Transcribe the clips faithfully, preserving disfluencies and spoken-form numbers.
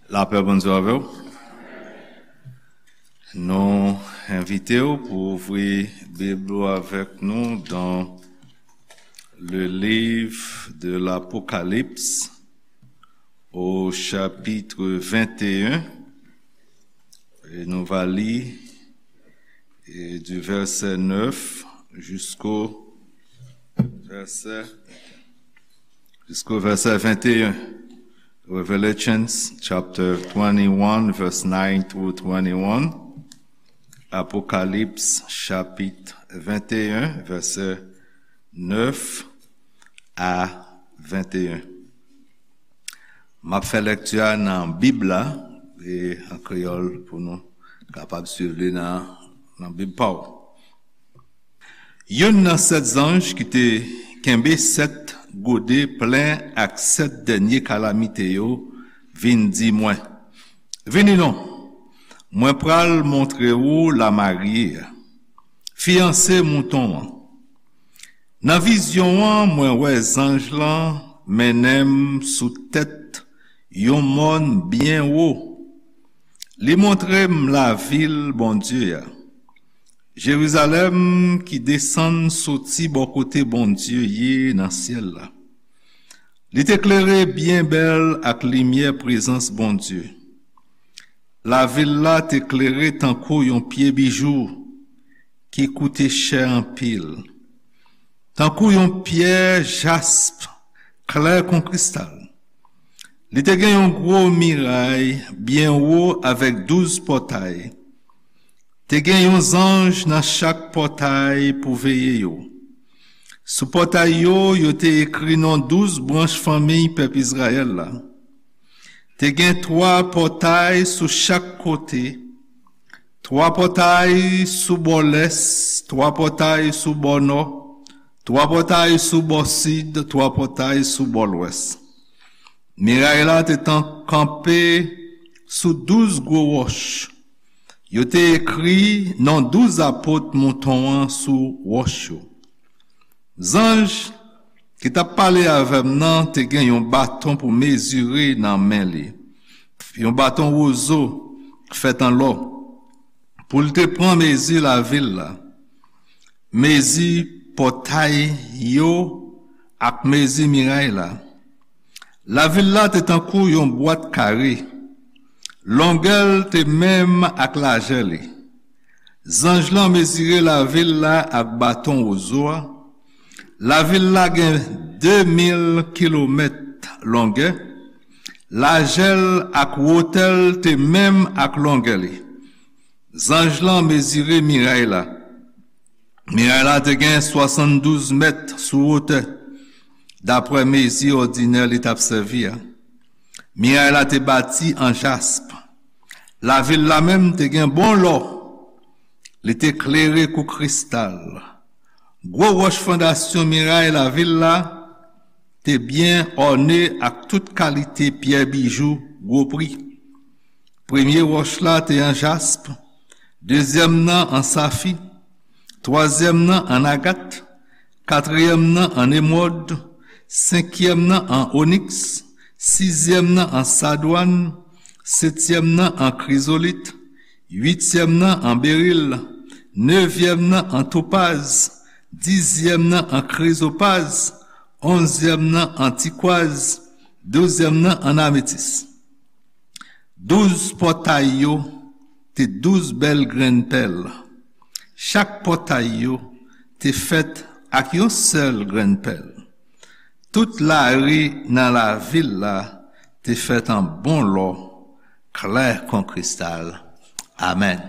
Lapè Bondye avè w. Nou envite w pou ouvri Bib ou avèk nou dans le livre de l'Apocalypse, au chapitre vingt et un. E nou va li, e, du verset neuf jusqu'au verset, jusqu'au verset vingt et un. Revelations chapter twenty-one, verse nine through twenty-one. Apocalypse chapitre vingt et un, verset neuf à vingt et un. M ap fè lèkti a nan Bib la, e an kreyòl, pou nou kapab swiv li nan, nan Bib pa w. Youn nan sèt zanj ki te kenbe sèt gode plen ak sèt dènye kalamite yo vin di mwen, "Vini non, mwen pral montre ou lamarye a, fiyanse mouton an." Nan vizyon an, mwen wè zanj lan mennen m sou tèt yon mòn byen wo. Li montre m lavil Bondye a, Jerizalèm ki desann soti bò kote Bondye ye nan syèl la. Li te klere byen bèl ak limyè prezans Bondye. Lavil la te klere tankou yon pye bijou ki koute chè anpil, tankou yon pyè jasp klè kon kristal. Li te gen yon gwo miray byen wo avèk douz pòtay. Te gen yon zanj nan chak pòtay pou veye yo. Sou pòtay yo, yo te ekri non douz branch fanmi pèp Izrayèl la. Te gen twa pòtay sou chak kote, twa pòtay sou bò lès, twa pòtay sou bò nò, twa pòtay sou bò sid, twa pòtay sou bò lwès. Miray la te tan kanpe sou douz gwo wòch. Yo te ekri non douz apot mouton an sou wòch yo. Zanj ki t ap pale avè m nan te gen yon baton pou mezire nan men li, yon baton wozo fèt an lò, pou l te pran mezi lavil la, mezi pòtay yo ak mezi miray la. Lavil la te tankou yon bwat kare. Longè l te menm ak lajè li. Zanj lan mezire lavil la ak baton wozo a. Lavil la gen de mil kilomèt longè. Lajè l ak wotè l te menm ak longè li. Zanj lan mezire miray la. Miray la te gen swasanndouz mèt sou wotè, daprè mezi òdinè li t ap sèvi a. Miray la te bati an jasp. Lavil la menm te gen bon lò. Li te klere kou kristal. Gwo wòch fondasyon miray lavil la te byen òne ak tout kalite pyè bijou gwo pri. Premye wòch la te an jasp, dezyèm nan an safi, twazyèm nan an agat, katriyèm nan an emwòd, senkyèm nan an oniks, sizyèm nan an sadwàn, setyèm nan an krizolit, uityèm nan an beril, nevyèm nan an topaz, dizyèm nan an krizopaz, onzyèm nan an tikwaz, douzyèm nan an ametis. Douz pòtay yo te douz bèl grenn pèl. Chak pòtay yo te fèt ak yon sèl grenn pèl. Tout lari nan lavil la te fèt an bon lò, klè kon kristal. Amèn.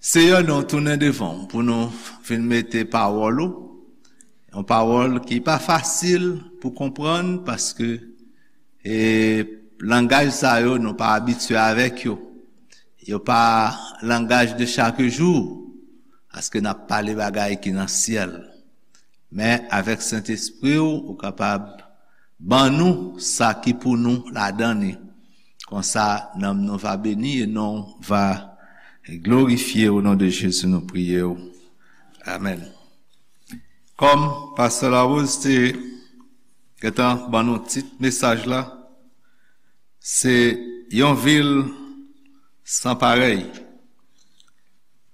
Seyè, nou tounen devan w pou nou vin mete pawòl ou, yon pawòl ki pa fasil pou konprann, paske e langaj sa yo, nou pa abitye avèk yo. Yo pa langaj de chak jou, paske n ap pale bagay ki nan syèl. Men avèk Sentespri w, ou kapab ban nou sa ki pou nou ladan li. Konsa, nanm nou va beni e non w va glorifye. O non de Jezi, nou priye w. Amèn. Kòm Pastè Larose te gentan ban nou tit mesaj la, se Yon vil san parèy.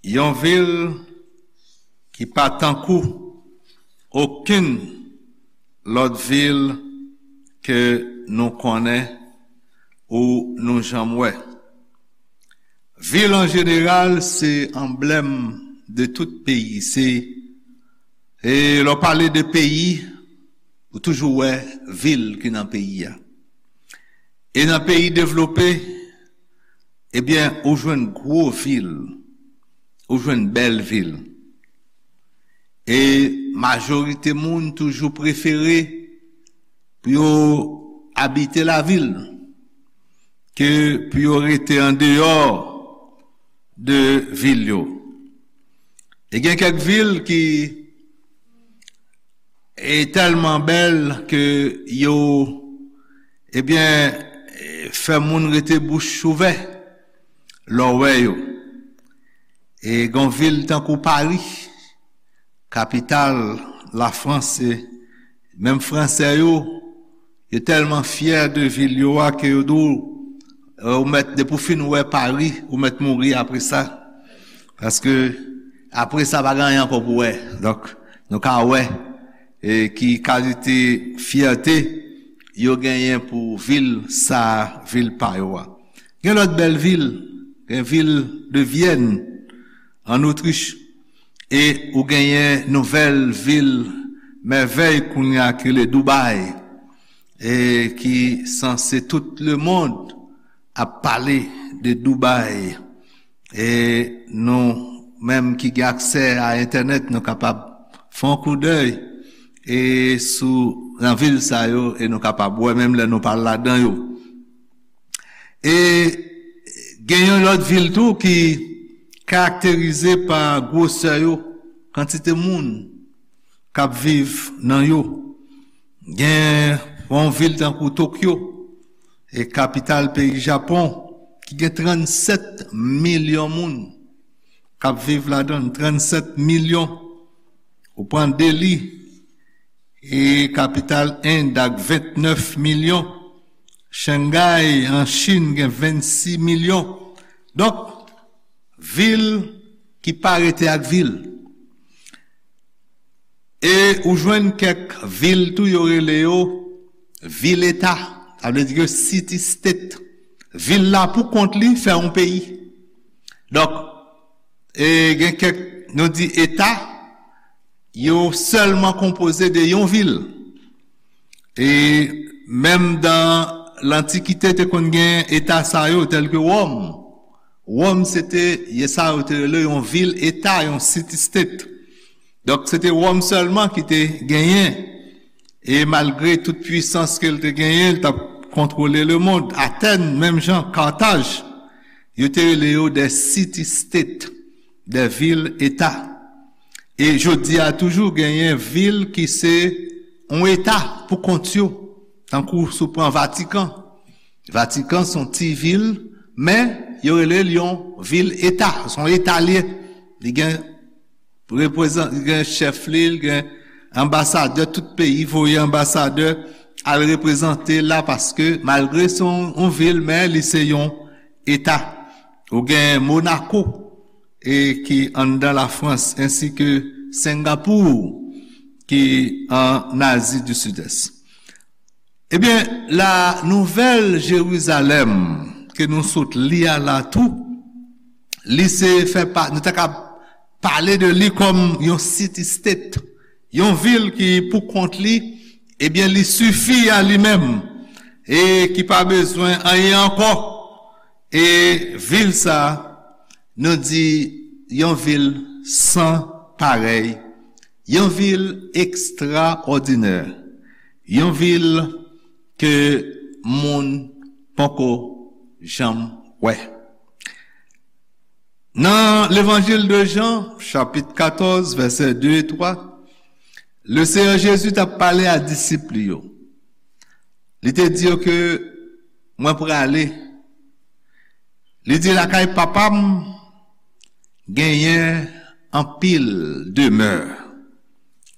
Yon vil ki pa tankou okenn lòt vil ke nou konnen ou nou janm wè. Vil an jeneral se anblèm de tout peyi. Se, e lè w pale de peyi, ou toujou wè vil ki nan peyi a. E nan peyi devlope, ebyen, ou jwenn gwo vil, ou jwenn bèl vil. E majorite moun toujou prefere pou yo abite lavil ke pou yo rete andeyò de vil yo. E gen kèk vil ki e tèlman bèl ke yo, ebyen, fè moun rete bouch ouvè lè w wè yo. E gen vil tankou Pari, kapital Lafrans, e menm Fransè yo, yo tèlman fyè de vil yo a ke yo di w, e, ou mèt, depi w fin wè Pari, ou mèt mouri apre sa. Paske apre sa, pa gen anyen ankò pou wè. Donk, nou ka wè, e, ki kalite fyète yo genyen pou vil sa, vil pa yo a. Gen lòt bèl vil, gen vil de Vyèn, an Otrich, e ou genyen nouvèl vil mèvèy kounye a ki rele Dubai, e ki sanse tout lemonn ap pale de Dubai. E nou menm ki gen aksè a entènèt, nou kapab fè yon koudèy e sou, nan vil sa yo, e nou kapab wè menm lè nou pa ladan yo. E gen yon lòt vil tou ki karakterize pa gwosè yo, kantite moun k ap viv nan yo. Gen yon vil tankou Tokyo, e kapital peyi Japon, ki gen trannsèt milyon moun k ap viv ladan l, trannsèt milyon. Ou pran Delhi, e kapital End ak vennèf milyon. Shanghai an Chin gen vennsis milyon. Donk, vil ki pa rete ak vil. E ou jwenn kèk vil tou, yo rele yo vil eta. Sa vle di ke city state. Vil la pou kont li fè yon peyi. Donk, e gen kèk, nou di eta, yo sèlman konpoze de yon vil. E menm dan lantikite, te konn gen eta sa yo, tèl ke Wòm. Wòm, se te, ye sa yo te rele yon vil eta, yon city state. Donk, se te Wòm sèlman ki te genyen. E malgre tout pwisans ke l te genyen, l t ap kontwole lemonn. Atèn, menm jan, Kataj, yo te rele yo de city state, de vil eta. E jodi a toujou genyen vil ki se yon eta pou kont yo, tankou si w pran Vatikan. Vatikan se yon ti vil, men yo rele l yon vil eta, se yon eta l ye. Li gen reprezan-, li gen chèf li, li gen anbasadè, tout peyi voye anbasadè al reprezante la, paske malgre se yon, yon vil, men li se yon eta. Ou gen Monaco, e ki anndan Lafrans, ensi ke Sengapour, ki an Azi di Sidès. Ebyen, la Nouvèl Jerizalèm ke nou sot li a la tou, li se fè pa, nou ta ka pale de li kòm yon city state, yon vil ki pou kont li, ebyen, li sifi a li menm e ki pa bezwen anyen ankò. E vil sa, nou di, yon vil san parèy, yon vil ekstraòdinè, yon vil ke moun poko janm wè. Nan Levanjil de Jan, chapit katòz, vèsè de e twa, Leseyè Jezi t ap pale a disip li yo. Li te di yo ke, "Mwen prale." Li di, "Lakay Papa m genyen anpil demè."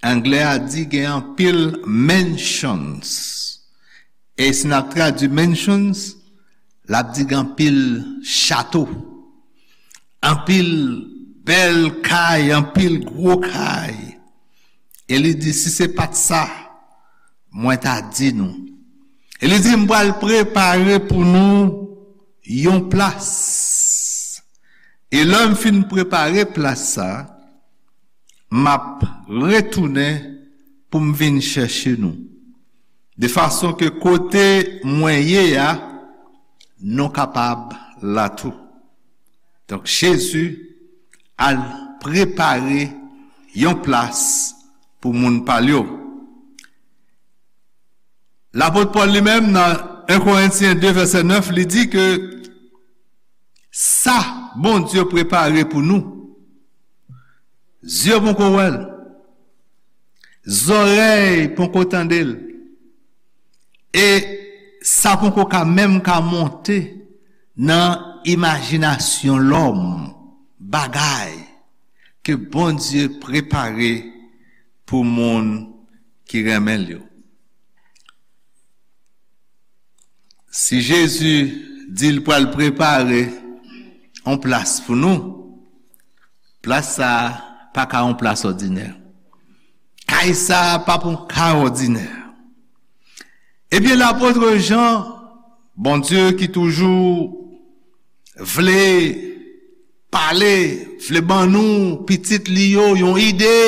Anglè a di gen anpil mansions. E si n ap tradui mansions, L ap di gen anpil chato, anpil bèl kay, anpil gwo kay. E li di, "Si se pa t sa, mwen ta di nou." E li di, "M pral prepare pou nou yon plas. E lè m fin prepare plas sa, m ap retounen pou m vin chèche nou. De fason ke kote mwen ye a, nou kapab la tou." Donk, Jezi al prepare yon plas pou moun pa l yo. Lapot Pòl li menm, nan en Korentyen de vèsè nèf, li di ke sa Bondye prepare pou nou, zye poko wè l, zòrèy poko tande l, e sa poko ka menm ka monte nan imajinasyon lòm, bagay ke Bondye prepare pou moun ki renmen l yo. Si Jezi di l pral prepare yon plas pou nou, plas sa a pa ka yon plas òdinè. Kay sa a p ap yon kay òdinè. Ebyen, lapot Jan, Bondye ki toujou vle pale, vle ban nou, pitit li yo, yon ide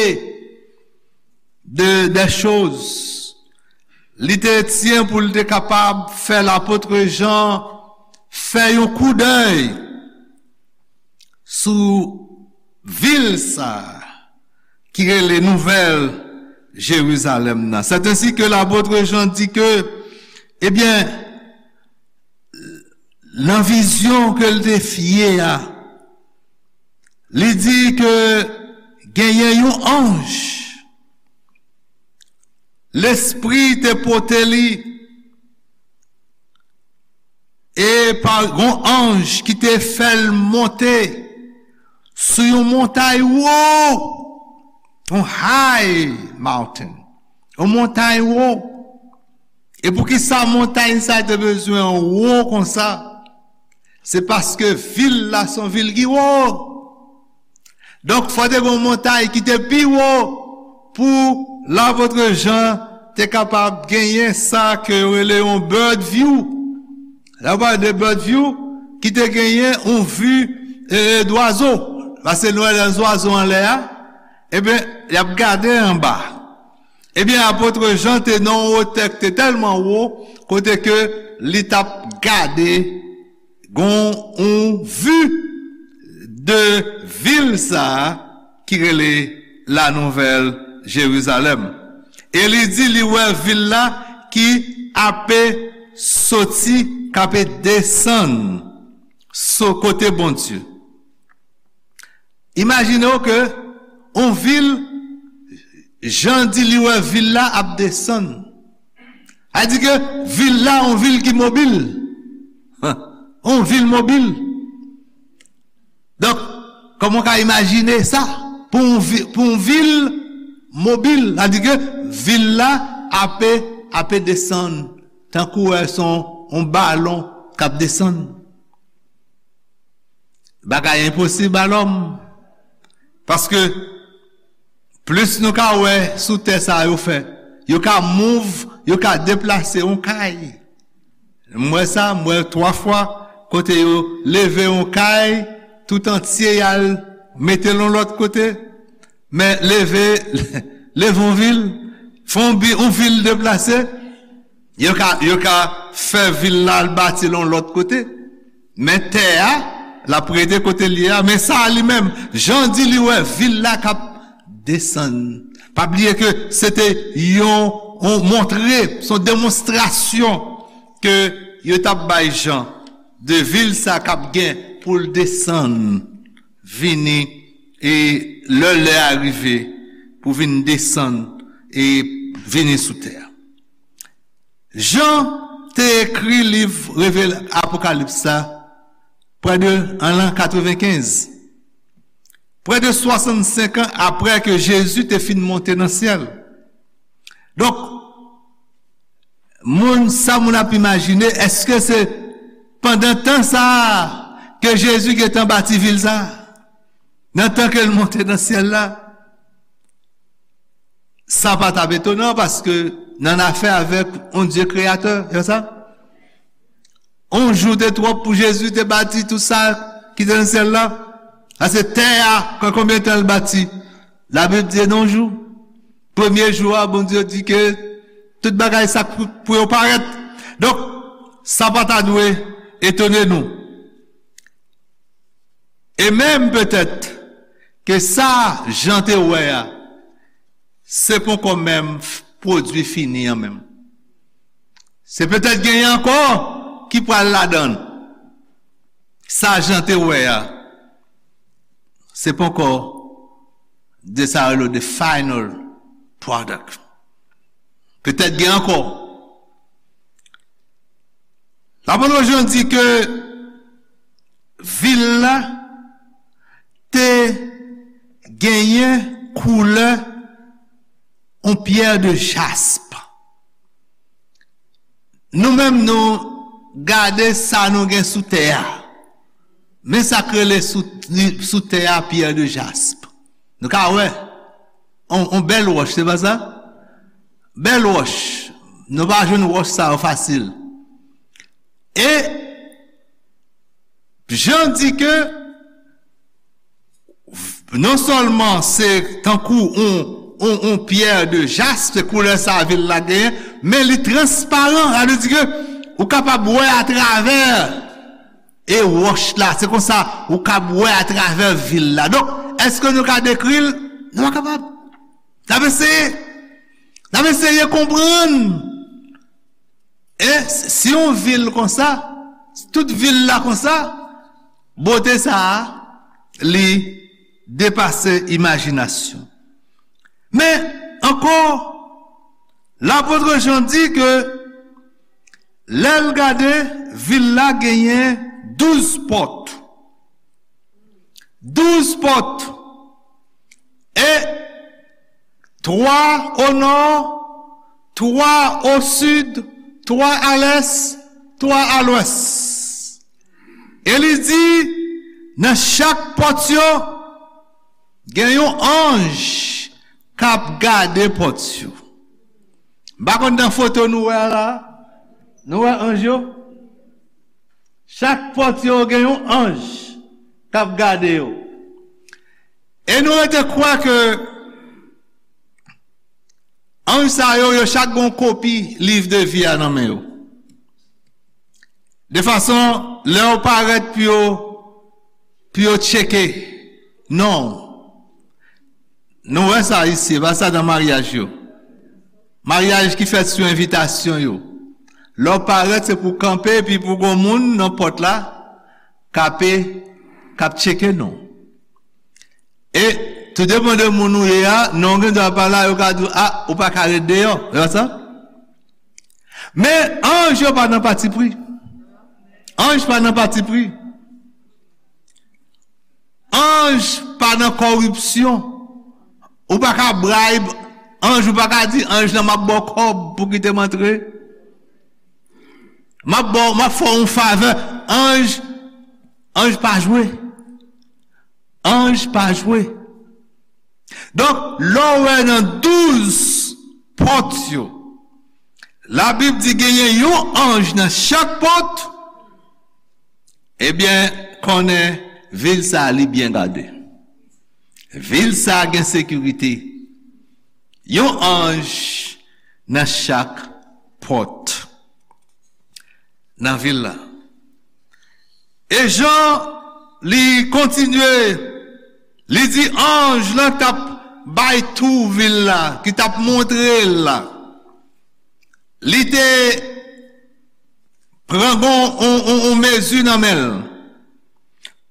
de, de choz. Li te tyen pou l te kapab fè lapot Jan fè yon koudèy sou vil sa a ki rele Nouvèl Jerizalèm nan. Sètensi ke lapot Jan di ke, ebyen, nan vizyon ke l te fè a, li di ke genyen yon anj, Lespri te pote li, e pa yon anj ki te fè l monte sou yon montay wo, yon high mountain, yon montay wo. E poukisa montay sa te bezwen wo konsa? Se paske vil la se yon vil ki wo. Donk, fò te gen yon montay ki te pi wo pou lapot Jan te kapab genyen sa ke yo rele yon bird view. Lè w pale de bird view, ki te genyen yon vi, e, dwazo. Paske nou wè lè zwazo anlè a, ebyen, y ap gade anba. Ebyen, apot Jan te nan yon wotè ki te tèlman wo, kote ke li t ap gade, gon yon vi de vil sa a ki rele La Nouvèl Jerizalèm. E li di li wè vil la ki ape soti, k ape desann sou kote Bondye. Imajine w ke yon vil, Jan di li wè vil la ap desann. A di ke vil la, yon vil ki mobil. Yon vil mobil. Donk, kòman w ka imajine sa? Pou yon vi-, pou yon vil mobil, sa di ke vil la ape, ape desann, tankou wè se yon, yon balon k ap desann. Bagay enposib a lòm. Paske plis nou ka wè sou tè sa yo fè. Yo ka move, yo ka deplase yon kay. M wè sa, m wè twa fwa kote yo leve yon kay tout antye, y al mete l yon lòt kote. Men leve, leve yon vil, fè yon bi-, yon vil deplase, yo ka, yo ka fè vil la al bati l yon lòt kote. Men tè a, l ap rete kote l ye a. Men sa a li menm, Jan di li wè vil la k ap desann. Pa bliye ke se te yon, yon montre, se yon demonstrasyon ke yo t ap bay Jan de vil sa k ap gen pou l desann, vini, e lè, lè a rive pou vin desann e vini sou tè a. Jan te ekri liv Revela-, Apokalips la prè de, an lan katrevenkenz, prè de swasannsenk an apre ke Jezi te fin monte nan syèl. Donk, moun, sa moun ap imajine, èske se Pandan tan sa a ke Jezi gentan bati vil sa a, nan tan ke l monte nan syèl la, sa pa t ap etonan paske n ann afè avèk yon Dye kreyatè, se sa? On jou te twòp pou Jezi te bati tout sa ki te nan syèl la. Sa se tè a, kon konbyen tan l bati? Labib di nan jou. Premye jou a, Bondye di ke tout bagay sa pou, pou yo parèt. Donk, sa pa ta dwe etone nou. E menm petèt ke sa Jan te wè a, se poko menm pwodui fini an menm. Se petèt genyen ankò ki pral ladan l. Sa Jan te wè a, se poko de sa yo rele the final product. Petèt gen ankò. Lapot Jan di ke vil la te genyen koulè yon pyè de jasp. Nou menm nou gade sa nou gen sou tè a. Men sa k rele sou, sou tè a pyè de jasp. Nou ka wè. On, on bèl wòch, se pa sa? Bèl wòch. Nou pa jwenn wòch sa yo fasil. E Jan di ke non sèlman se tankou on, on, on pyè de jasp, se koulè sa vil la genyen, men li transparan, sa vle di ke ou kapab wè atravè e wòch la, se konsa ou kab wè atravè vil la. Donk, èske nou ka dekri l? Nou pa kapab. N ap eseye. N ap eseye konprann. E si yon vil konsa, tout vil la konsa, bote sa a, li depase imajinasyon. Men, ankò, lapot Jan di ke lè l gade, vil la genyen douz pòt. Douz pòt. E twa o nò, twa o sid, twa a lès, twa a lwès. E li di, nan chak pòt yo, gen yon anj k ap gade pòt yo. M pa konn nan foto nou wè a la. Nou wè anj yo? Chak pòt yo gen yon anj k ap gade yo. E nou rete kwè ke anj sa yo, yo chak gen yon kopi liv de vi a nan men yo. De fason, lè yo parèt pou yo, pou yo tcheke non w. Nou wè sa isi, e pa sa nan maryaj yo. Maryaj ki fèt sou envitasyon yo. Lè w parèt, se pou w kanpe, epi pou gon moun nan pòt la, k ape, k ap tcheke non w. E, tou depann de moun ou ye a, non w gen dwa pa la, yo ka di w, a, ou pa ka ret deyò. Se pa sa? Men, anj yo pa nan patipri. Anj pa nan patipri. Anj pa nan kòripsyon. Ou pa ka bribe anj, ou pa ka di anj lan, "M ap ba w kòb pou kite m antre. M ap ba w, m ap fè w yon favè." Anj, anj pa jwe. Anj pa jwe. Donk, lè w wè nan douz pòt yo, Labib di genyen yon anj nan chak pòt, ebyen, konnen vil sa a li byen gade. Vil sa a gen sekirite. Yon anj nan chak pòt nan vil la. E Jan, li kontinye, li di anj lan t ap bay tou vil la, ki t ap montre l la. Li te pran gon, on, on, on mezi nan men l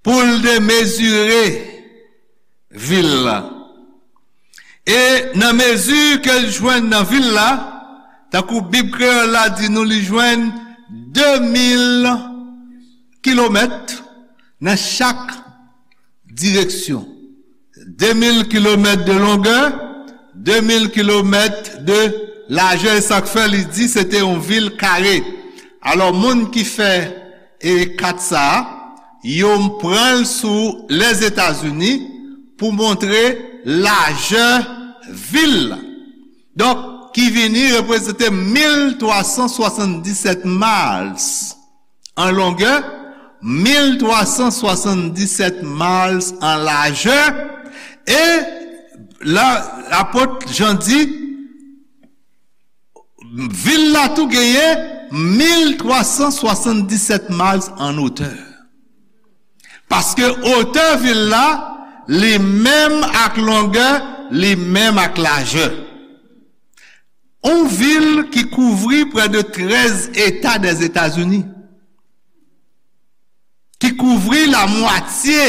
pou l te mezire vil la. E nan mezi ke l jwenn nan vil la, tankou Bib kreyòl la di nou, li jwenn de mil kilomèt nan chak direksyon. De mil kilomèt de longè, de mil kilomèt de lajè, e sa k fè li di se te yon vil kare. Alò, moun ki fè E kat sa a, yo pran l sou Lèzetazini pou montre lajè vil la. Donk, ki vini reprezante mil twa san swasanndisèt miles an longè, mil twa san swasanndisèt miles an lajè, e la, lapot Jan di, vil la tou genyen mil twa san swasanndisèt miles an otè. Paske otè vil la, li menm ak longè, li menm ak lajè. Yon vil ki kouvri prè de trèz eta dèzetazini, ki kouvri lamwatye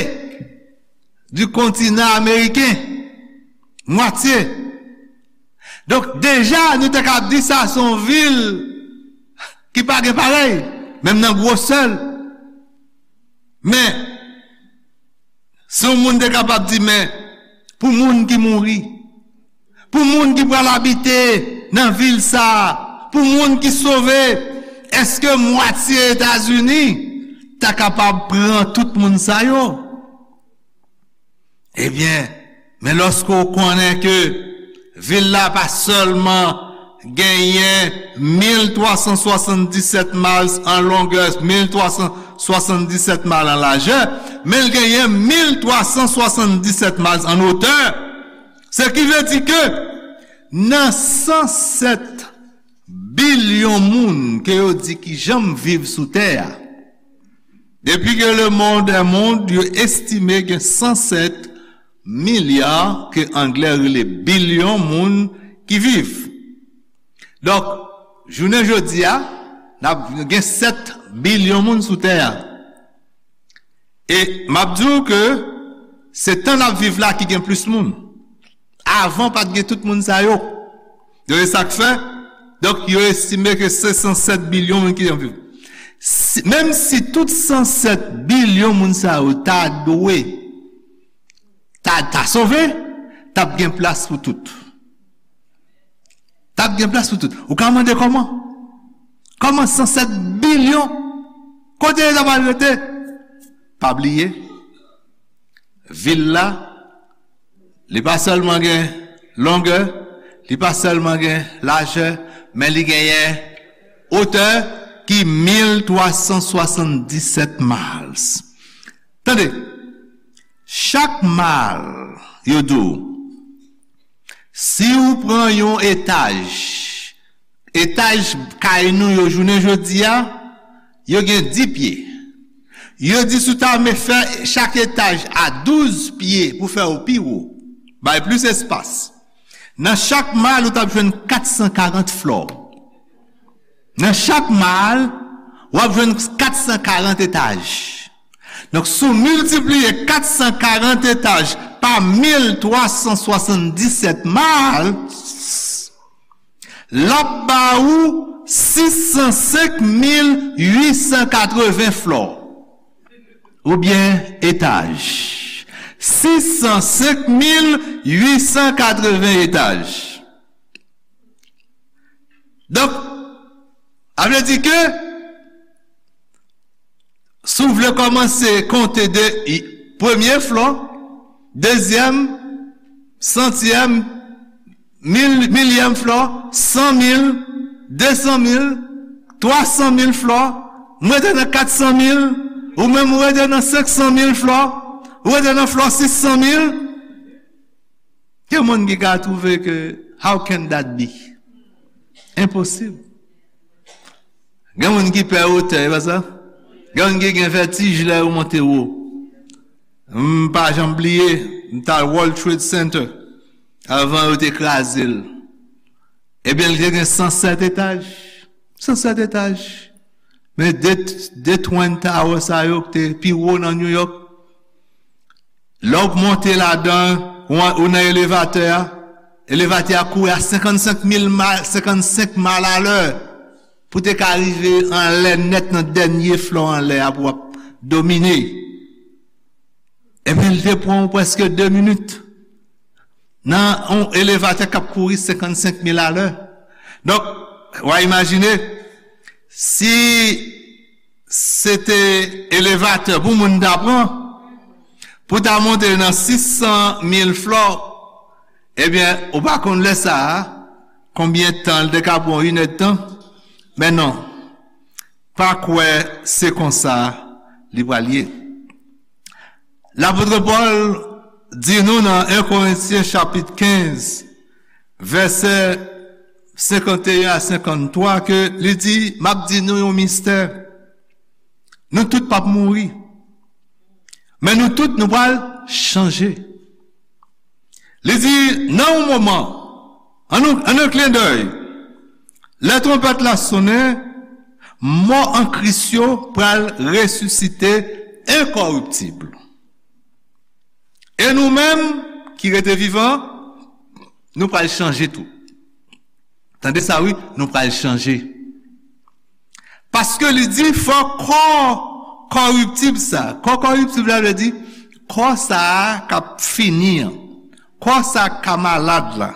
di kontinan ameriken. Mwatye. Donk, deja, nou te kab di sa se yon vil ki pa gen parèy, menm nan gwosè l. Men, si yon moun te kapab di, men, pou moun ki mouri, pou moun ki pral abite nan vil sa a, pou moun ki sove, èske mwatye Etazini ta kapab pran tout moun sa yo? Ebyen, men lòske w konnen ke vil la pa sèlman genyen mil twa san swasanndisèt miles an longè, mil twa san swasanndisèt miles an lajè, men l genyen mil twa san swasanndisèt miles an otè. Se ki vle di ke nan san sèt bilyon moun ke yo di ki janm viv sou tè a, depi ke le monde est monde, yo estime gen san sèt milya, ke anglè rele bilyon moun ki viv. Donk, jounen jodi a, n ap gen sèt bilyon moun sou tè a. E m ap di w ke se tan n ap viv la ki gen plis moun. Avan, pa t gen tout moun sa yo. Donk, e sa k fè, donk, yo estime ke se san sèt bilyon moun ki ap viv. Si, menm si tout san sèt bilyon moun sa yo ta dwe, ta, ta sove, t ap gen plas pou tout. T ap gen plas pou tout. Ou ka mande kòman? Kòman san sèt bilyon? Kote yo ta pral rete? Pa bliye, vil la, li pa sèlman gen longè, li pa sèlman gen lajè, men li genyen otè ki mil twa san swasanndisèt miles. Tande, chak mile, yo di w, si w pran yon etaj, etaj kay nou yo jounen jodi a, yo gen dis pye. Yo di si w ta renmen fè chak etaj a douz pye pou fè yo pi wo, bay plis espas. Nan chak mile, ou t ap jwenn kat san karant flò. Nan chak mile, w ap jwenn kat san karant etaj. Donk, si w miltipliye kat san karant etaj pa mil twa san swasanndisèt mile, l ap ba ou sis san senk mil uit san katreven flò. Oubyen etaj. Sis san senk mil uit san katreven etaj. Donk, sa vle di ke si w vle kòmanse konte de i- premye flò, dezyèm, santyèm, mil, milyèm flò, san mil, de san mil, twa san mil flò, m rete nan kat san mil, ou menm ou rete nan senk san mil flò, ou rete nan flò sis san mil. Gen moun ki ka twouve ke, how can that be? Enposib. Gen moun ki pè wotè, e pa sa? Gen moun ki gen vètij lè yo monte wo. M pa janm bliye, m t al World Trade Center avan yo te kraze l. Ebyen, li te gen san sèt etaj. San sèt etaj. Men de, de Twin Tower sa yo ki te pi wo nan New York, lè w monte ladan, ou, ou nan elevatè a, elevatè a kouri a senkannsenk mil mile, senkannsenk mil alè pou te ka rive anlè nèt nan dènye flò anlè a pou w ap domine. Ebyen, li te pran w prèske de minit nan yon elevatè k ap kouri senkannsenk mil alè. Donk, w a imajine, si se te elevatè pou moun ta pran, pou ta monte nan sis san mil flò, ebyen, ou pa konn lè sa a, konbyen tan l te ka pran, yon inèdtan? Men non, pa kwè se konsa li pral ye. Lapot Pòl di nou nan en Korentyen chapit kenz, vèsè senkanteyen a senkanntwa, ke li di, "M ap di nou yon mistè. Nou tout p ap mouri, men nou tout nou pral chanje." Li di, nan yon moman, an yon, an yon klendèy, lè twonpèt la sonnen, mò an Kris yo pral resisite enkòriptib. E nou menm ki rete vivan, nou pral chanje tou. Tande sa, wi, nou pral chanje. Paske li di, fò kò kòriptib sa. Kò kòriptib la vle di, kò sa a k ap fini an. Kò sa k ka malad la.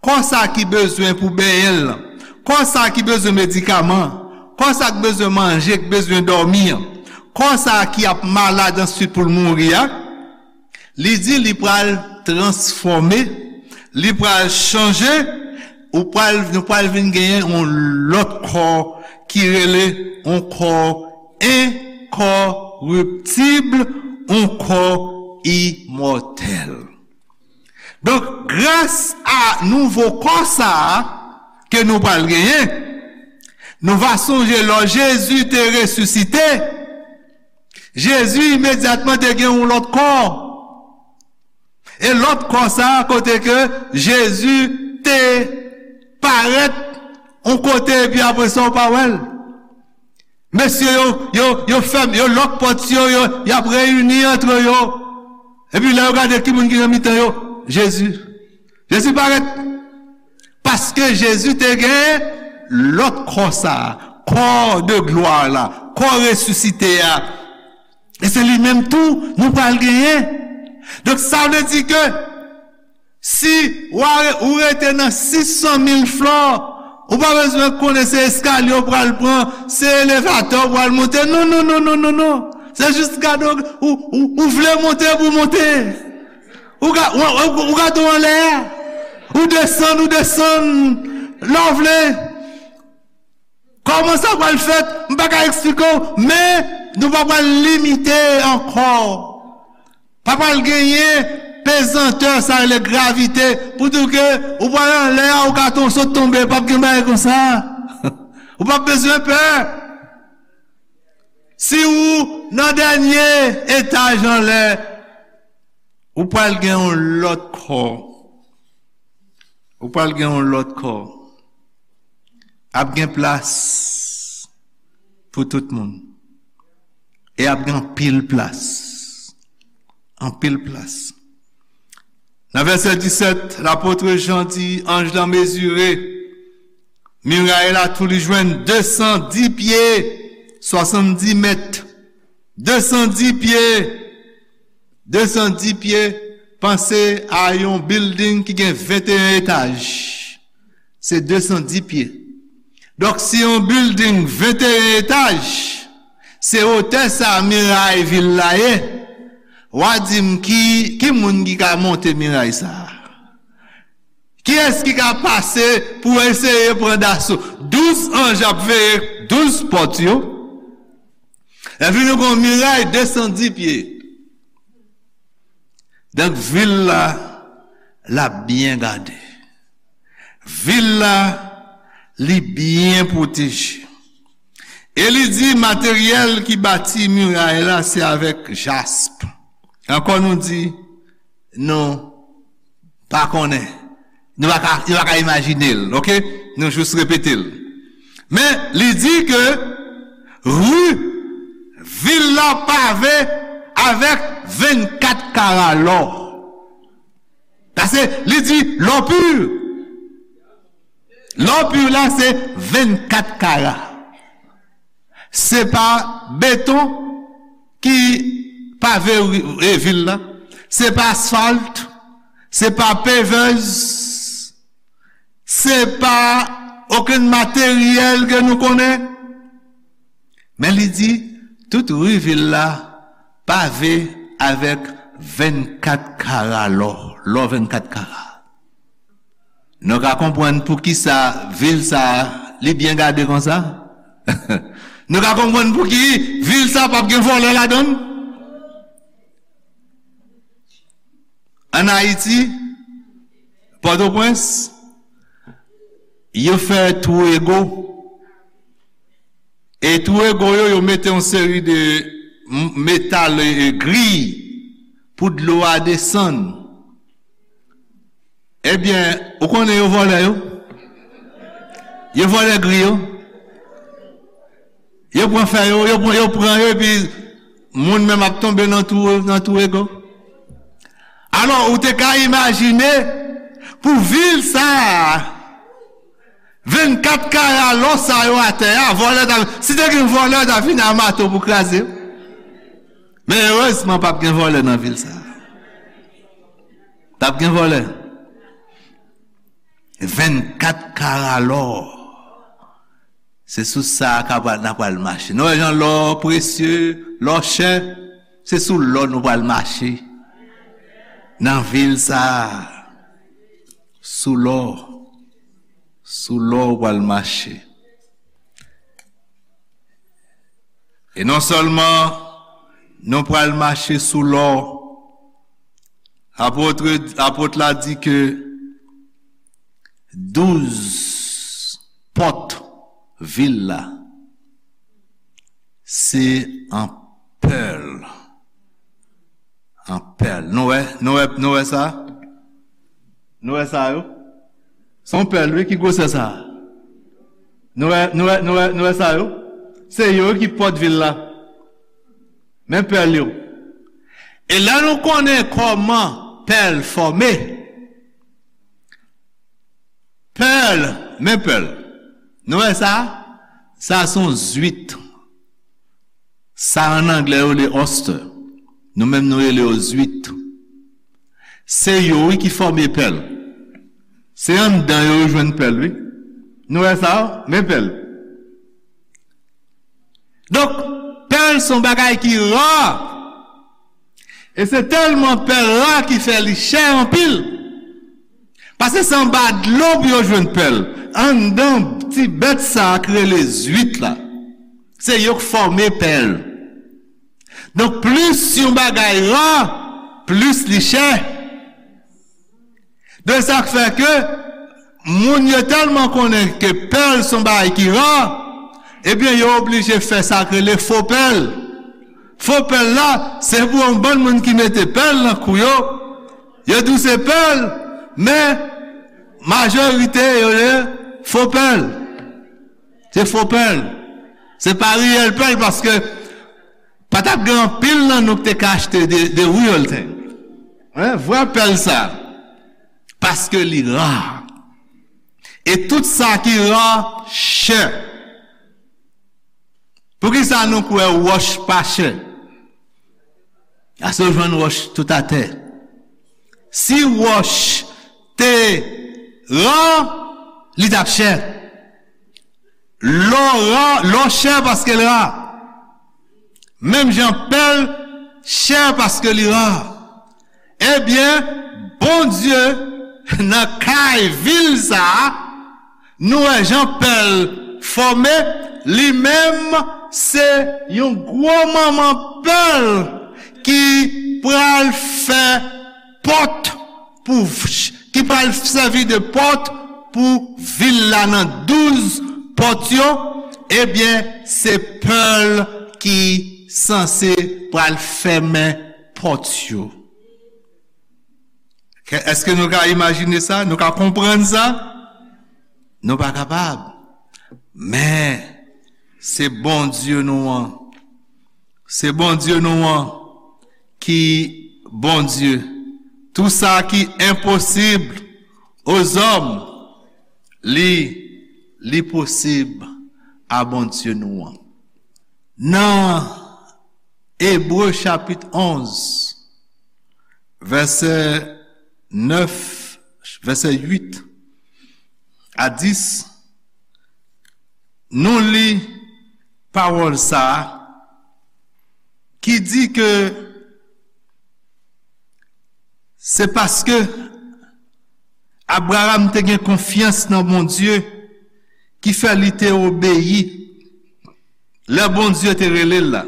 Kò sa ki bezwen pou benyen l lan. Kò sa ki bezwen medikaman. Kò sa k bezwen manje, k bezwen dòmi an. Kò sa ki ap malad answit pou l mouri a. Li di li pral transfòme, li pral chanje, ou pral, nou pral vin genyen yon lòt kò ki rele yon kò enkòriptib, yon kò imòtèl. Donk, gras a nouvo kò sa a ke nou pral genyen, nou va sonje lò Jezi te resisite, Jezi imedyatman te gen yon lòt kò. E lòt kò sa a, kote ke Jezi te parèt yon kote, epi apre sa, ou pa wè l. Mesye yo, yo, yo fèm, yo lòk pòt yo, yo, y ap reyini antre yo. Epi lè yo gade ki moun ki nan mitan yo, Jezi. Jezi parèt. Paske Jezi te gen lòt kò sa a, kò de glwa la, kò resisite a. E se li menm tou nou pral genyen. Donk, sa vle di ke si w a re-, ou rete nan sis san mil flò, ou pa bezwen konnen se eskalye w pral pran, se elevatè w pral monte. Non, non, non, non, non, non. Se jis gade w, ou, ou, ou vle monte pou w monte. Ou ga-, ou, ou, ou gade w anlè a. Ou desann, ou desann. Lè w vle. Kòman sa pral fèt? M pa ka eksplike w, men nou pa pral limite ankò. Pa pral genyen pezantè, sa rele gravite, pou di w ke ou pral anlè a, ou ka ton-, sot tonbe, p ap gen bagay konsa. Ou p ap bezwen pè. Si ou nan dènye etaj anlè, ou pral gen yon lòt kò. Ou pral gen yon lòt kò. Ap gen plas pou tout moun. E ap gen anpil plas. Anpil plas. Nan vèsè disèt, lapot Jan di, anj lan mezire miray la, tou li jwenn de san dis pye, swasanndis mèt. De san dis pye, de san dis pye, panse a yon bilding ki gen venteyen etaj. Se de san dis pye. Donk, si yon bilding venteyen etaj, se wotè sa miray vil la ye, w a di m ki, ki moun ki ka monte miray sa a? Kiyès ki ka pase pou eseye pran daso? Douz anj ap veye douz pòt yo. Epi nou gen yon miray de san dis pye. Donk, vil la, l ap byen gade. Vil la, li byen pwoteje. E li di, materyèl ki bati miray la, se avèk jasp. Ankò nou di, nou pa konnen. Nou pa ka, nou pa ka imajine l, oke? Nou jis repete l. Men, li di ke ri vil la pave avèk vennkat kara lò. Paske li di lò pi. Lò pi la se vennkat kara. Se pa beton ki pave ri-, e, vil la. Se pa asfalt. Se pa pevèz. Se pa okenn materyèl ke nou konnen. Men li di, tout ri vil la pave avèk vennkat kara lò, lò vennkat kara. Nou ka konprann poukisa vil sa a, li byen gade konsa? Nou ka konprann pouki vil sa a p ap gen vòlè ladan l? Ann Ayiti, Pòtoprens, yo fè twou ego. E twou ego yo, yo mete yon seri de m-, metal, e, e, griy pou dlo a desann. Ebyen, ou konnen yo vòlè yo? Yo vòlè griy yo. Yo pran fè yo, yo pran, yo pran yo, epi moun menm ap tonbe nan twou, nan twou ego. Alò, ou te ka imajine pou vil sa a, vennkat kara lò sa yo atè a, vòlè ta, si te gen vòlè, ta vin a mato pou kraze yo. Men erezman, p ap gen vòlè nan vil sa a. P ap gen vòlè. Vennkat kara lò. Se sou sa a ka pral, n a pral mache. Nou wè jan lò presye, lò chè, se sou lò nou pral mache. Nan vil sa a, sou lò, sou lò ou pral mache. E non sèlman nou pral mache sou lò, apot, apot la di ke douz pòt vil la, se an pèl. An pèl. Nou wè, nou wè, nou wè sa? Nou wè sa yo? Se yon pèl, wi, ki gwosè sa? Nou wè, nou wè, nou wè, nou wè sa yo? Se yo ki pòt vil la. Men pèl yo. E lè nou konnen kòman pèl fòme, pèl, men pèl. Nou wè sa? Sa se yon zwit. Sa an anglè yo rele oyster. Nou menm nou rele yo zwit. Se yo, wi, ki fòme pèl. Se anndan yo yo jwenn pèl, wi. Nou wè sa? Men pèl. Donk, pèl se yon bagay ki ra. E se tèlman pèl ra ki fè li chè anpil. Paske se anba dlo pou yo jwenn pèl. Anndan ti bèt sa a ki rele zwit la. Se yo k fòme pèl. Donk, plis yon bagay ra, plis li chè. De sa k fè ke moun yo tèlman konnen ke pèl se yon bagay ki ra, ebyen, yo oblije fè sa k rele fo pèl. Fo pèl la, se pou yon bann moun ki mete pèl nan kou yo. Yo di w se pèl, men majorite yo rele fo pèl. Se fo pèl. Se pa reyèl pèl, paske pa t ap gen anpil nan nou ki te ka achte the, the real thing. Hein? Vrè pèl sa. Paske li ra. E tout sa ki ra, chè. Poukisa nou kwè wòch pa chè? Paske yo jwenn wòch tout atè. Si wòch te ra, li t ap chè. Lò ra, lò chè paske l ra. Menm jan pèl chè paske li ra. Ebyen, Bondye nan kay vil sa a, nou wè jan pèl fòme, li menm se yon gwo manman pèl ki pral fè pòt pou, ki pral sèvi de pòt pou vil la nan douz pòt yo, ebyen, se pèl ki sanse pral fèmen pòt yo. Ke, èske nou ka imajine sa? Nou ka konprann sa? Nou pa kapab. Men, se Bondye nou an. Se Bondye nou an ki Bondye. Tout sa ki enposib aux hommes, li, li posib a Bondye nou an. Nan Ebre chapit onz, vèsè nèf, vèsè uit a dis, nou li pawòl sa a ki di ke se paske Abraram te gen konfyans nan Bondye ki fè li te obeyi lè Bondye te rele l la.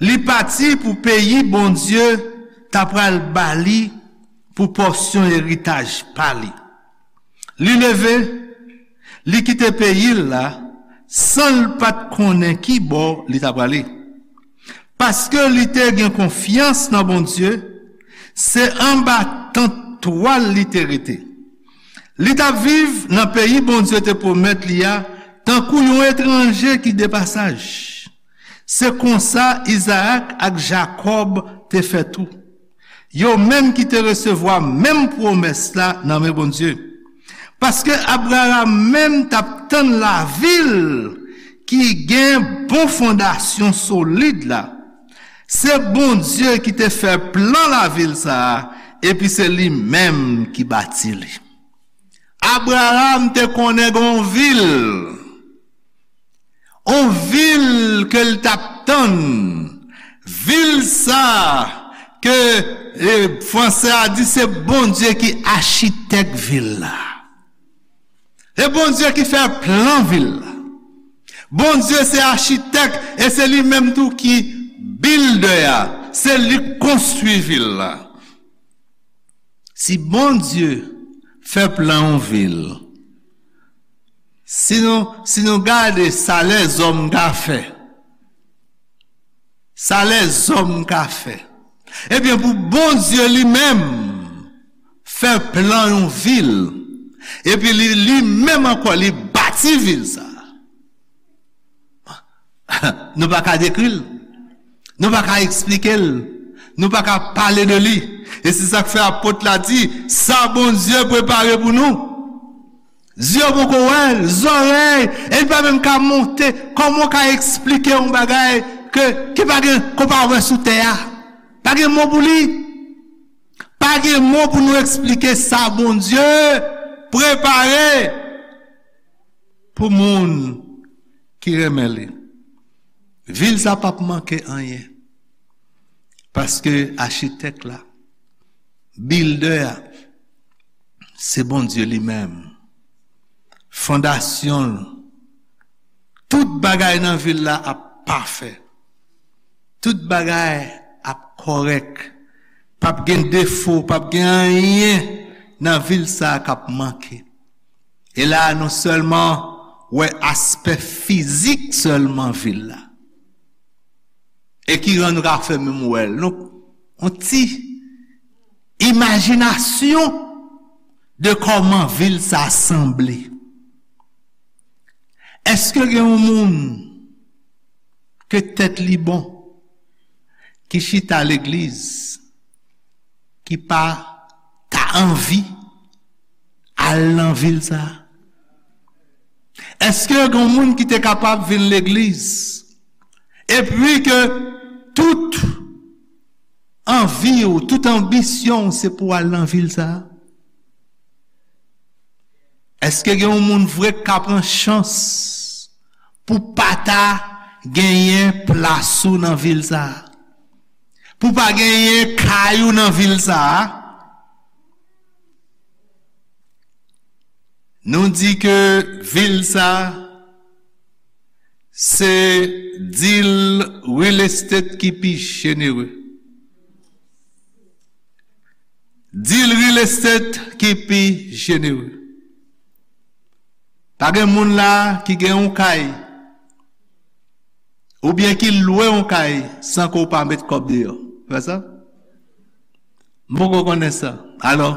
Li pati pou peyi Bondye ta pral ba li pou pòsyon eritaj pa li. Li leve, li kite peyi l la, san l pa t konnen ki bò li ta prale. Paske li te gen konfyans nan Bondye, se anba tant twal li te rete. Li t ap viv nan peyi Bondye te pwomèt li a, tankou yon etranje ki depasaj. Se konsa Izarak ak Jakòb te fè tou. Yo menm ki te resevwa menm pwomès la nan men Bondye. Paske Abraram menm t ap tann lavil ki gen bon fondasyon solid la. Se Bondye ki te fè plan lavil sa a, epi se li menm ki bati li. Abraram te konnen gen yon vil, yon vil ke l t ap tann. Vil sa a ke, e, fransè a di se Bondye ki achitèk vil la. Se Bondye ki fè plan vil la. Bondye se achitèk e se li menm tou ki bildè a. Se li k konstwi vil la. Si Bondye fè plan yon vil, si nou, si nou gade sa lèzòm ka fè, sa lèzòm ka fè, ebyen, pou Bondye li menm fè plan yon vil, epi li, li menm ankò, li bati vil sa a. Nou pa ka dekri l. Nou pa ka eksplike l. Nou pa ka pale de li. E se sa k fè apot la di, sa Bondye prepare pou nou. Zye w poko wè l, zòrèy, e li pa menm ka monte. Kòman w ka eksplike yon bagay ke, ki pa gen, ke w pa wè sou tè a? Pa gen mo pou li. Pa gen mo pou nou eksplike sa Bondye prepare pou moun ki renmen li. Vil sa p ap manke anyen. Paske achitèk la, bildè a, se Bondye li menm. Fondasyon l, tout bagay nan vil la ap pafè. Tout bagay ap kòrèk. P ap gen defo, p ap gen anyen nan vil sa a k ap manke. E la a, nou sèlman wè aspè fizik sèlman vil la. E ki rann nou ka fè menm wè l. Nou, yon ti imajinasyon de kòman vil sa a sanble. Èske gen yon moun ke tèt li bon, ki chita legliz, ki pa ta anvi al nan vil sa a? Èske gen yon moun ki te kapab vin legliz, epi ke tout anvi w, tout anbisyon w, se pou w al nan vil sa a? Èske gen yon moun vre k ka pran chans pou pa ta genyen plas ou nan vil sa a? Pou pa genyen kay ou nan vil sa a? Nou di ke vil sa a, se deal real estate ki pi jenere. Deal real estate ki pi jenere. Pa gen moun la ki gen yon kay, oubyen ki lwe yon kay san ke w pa met kòb deyò. Vre sa? M poko konnen sa. Alò,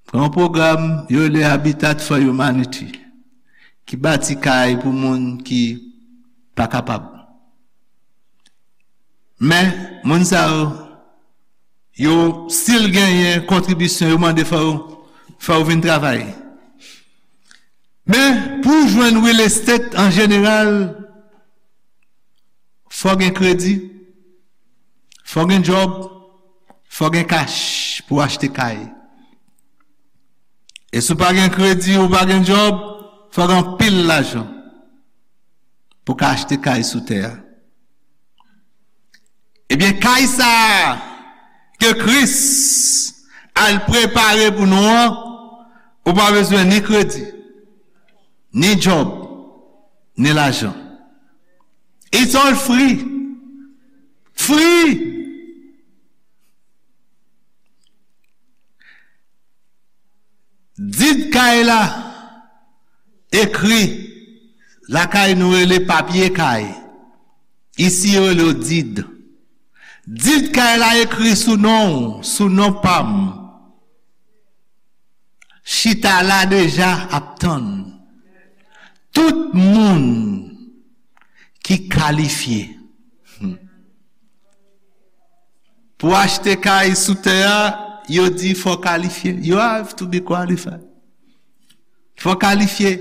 gen yon pwogram yo rele Habitat for Humanity ki bati kay pou moun ki pa kapab. Men, moun sa yo, yo still genyen kontribisyon, yo mande fò yo, fò yo vin travay. Men, pou w jwenn real estate an jeneral, fò gen kredi, fò gen djòb, fò gen kach pou w achte kay. E si w pa gen kredi, ou pa gen djòb, fò gen anpil lajan. pou w ka achte kay sou tè a. Ebyen, kay sa a ke Kris al prepare pou nou an, ou pa bezwen ni kredi, ni djòb, ni lajan. It's all free. Free! Did kay la ekri, lakay nou rele papye kay. Isi yo rele yo did. Did kay la ekri sou non w, sou non pa m. Chita la deja ap tann. Tout moun ki kalifye. Hmm. Pou achte kay sou tè a, yo di fò w kalifye. You have to be qualified. Fò w kalifye.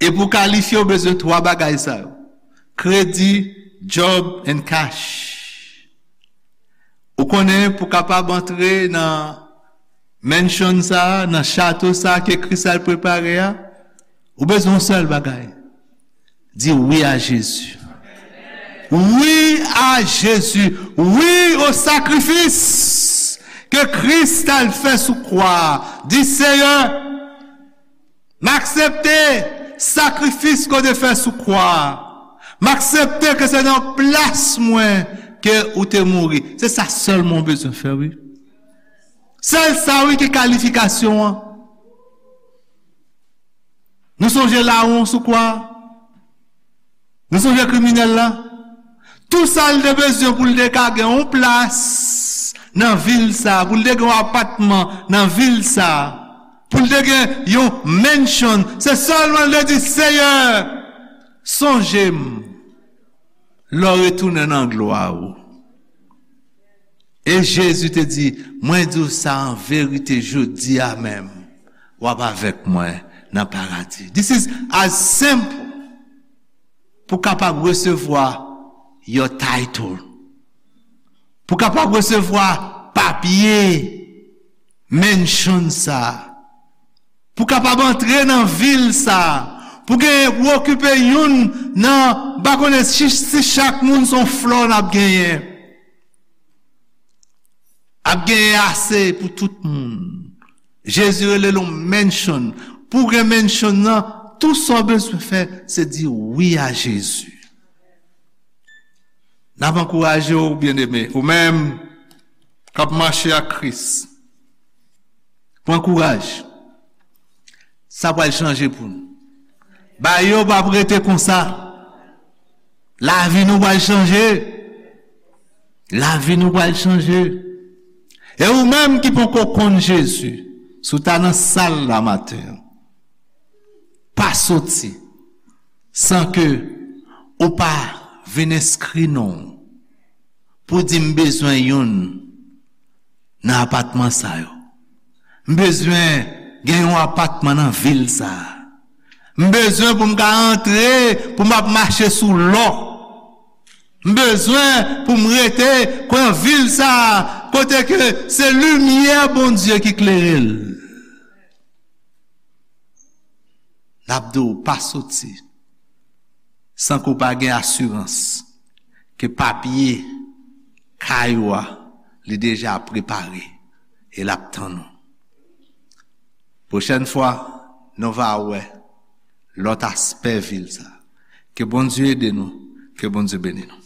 E pou w kalifye, w bezwen twa bagay sa yo. Kredi, djòb, and cash. Ou konnen, pou w kapab antre nan mansion sa a, nan chato sa a ke Kris al prepare a, ou bezwen yon sèl bagay. Di wi a Jezi. Wi a Jezi. Wi o sakrifis ke Kris t al fè sou kwa a. Di, Seyè, m aksepte sakrifis ke w te fè sou kwa a. M aksepte ke se nan plas mwen ke ou te mouri. Se sa sèlman w bezwen fè, wi. Sèl sa, wi, ki kalifikasyon an. Nou sonje lawon sou kwa a? Nou sonje kriminèl la? Tou sa l te bezwen pou l te ka gen yon plas nan vil sa, pou l te gen yon apatman nan vil sa, pou l te gen yon mansion, se sèlman l te di, Seyè, sonje m lè w retounen nan glwa ou. E Jezi te di, mwen di w sa an verite, jodi a menm, w ap avèk mwen nan paradi. This is as simple pou kapab resevwa your title. Pou kapab resevwa papye mansion sa. Pou kapab antre nan vil sa. Pou gen, pou okipe youn nan, m pa konnen si, si chak moun se yon flò n ap genyen. Ap genyen ase pou tout moun. Jezi rele l yon mansion. Pou w gen mansion nan, tou sa w bezwen fè, se di wi a Jezi. N ap ankouraje w, byeneme, ou menm k ap mache ak Kris. Pran kouraj. Sa pral chanje pou nou. Bagay yo p ap rete konsa. Lavi nou pral chanje. Lavi nou pral chanje. E ou menm ki poko konn Jezi, si w ta nan sal la maten an, pa soti san ke ou pa vin enskri non w pou di, m bezwen youn nan apatman sa yo. M bezwen gen yon apatman nan vil sa a. M bezwen pou m ka antre, pou m ap mache sou lò. M bezwen pou m rete nan vil sa a, kote ke se limyè Bondye ki klere l. N ap di w pa soti san ke w pa gen asirans ke papye kay ou a, li deja prepare e l ap tann ou. Pwochèn fwa, nou va wè lòt aspè vil sa. Ke Bondye ede nou, ke Bondye beni nou.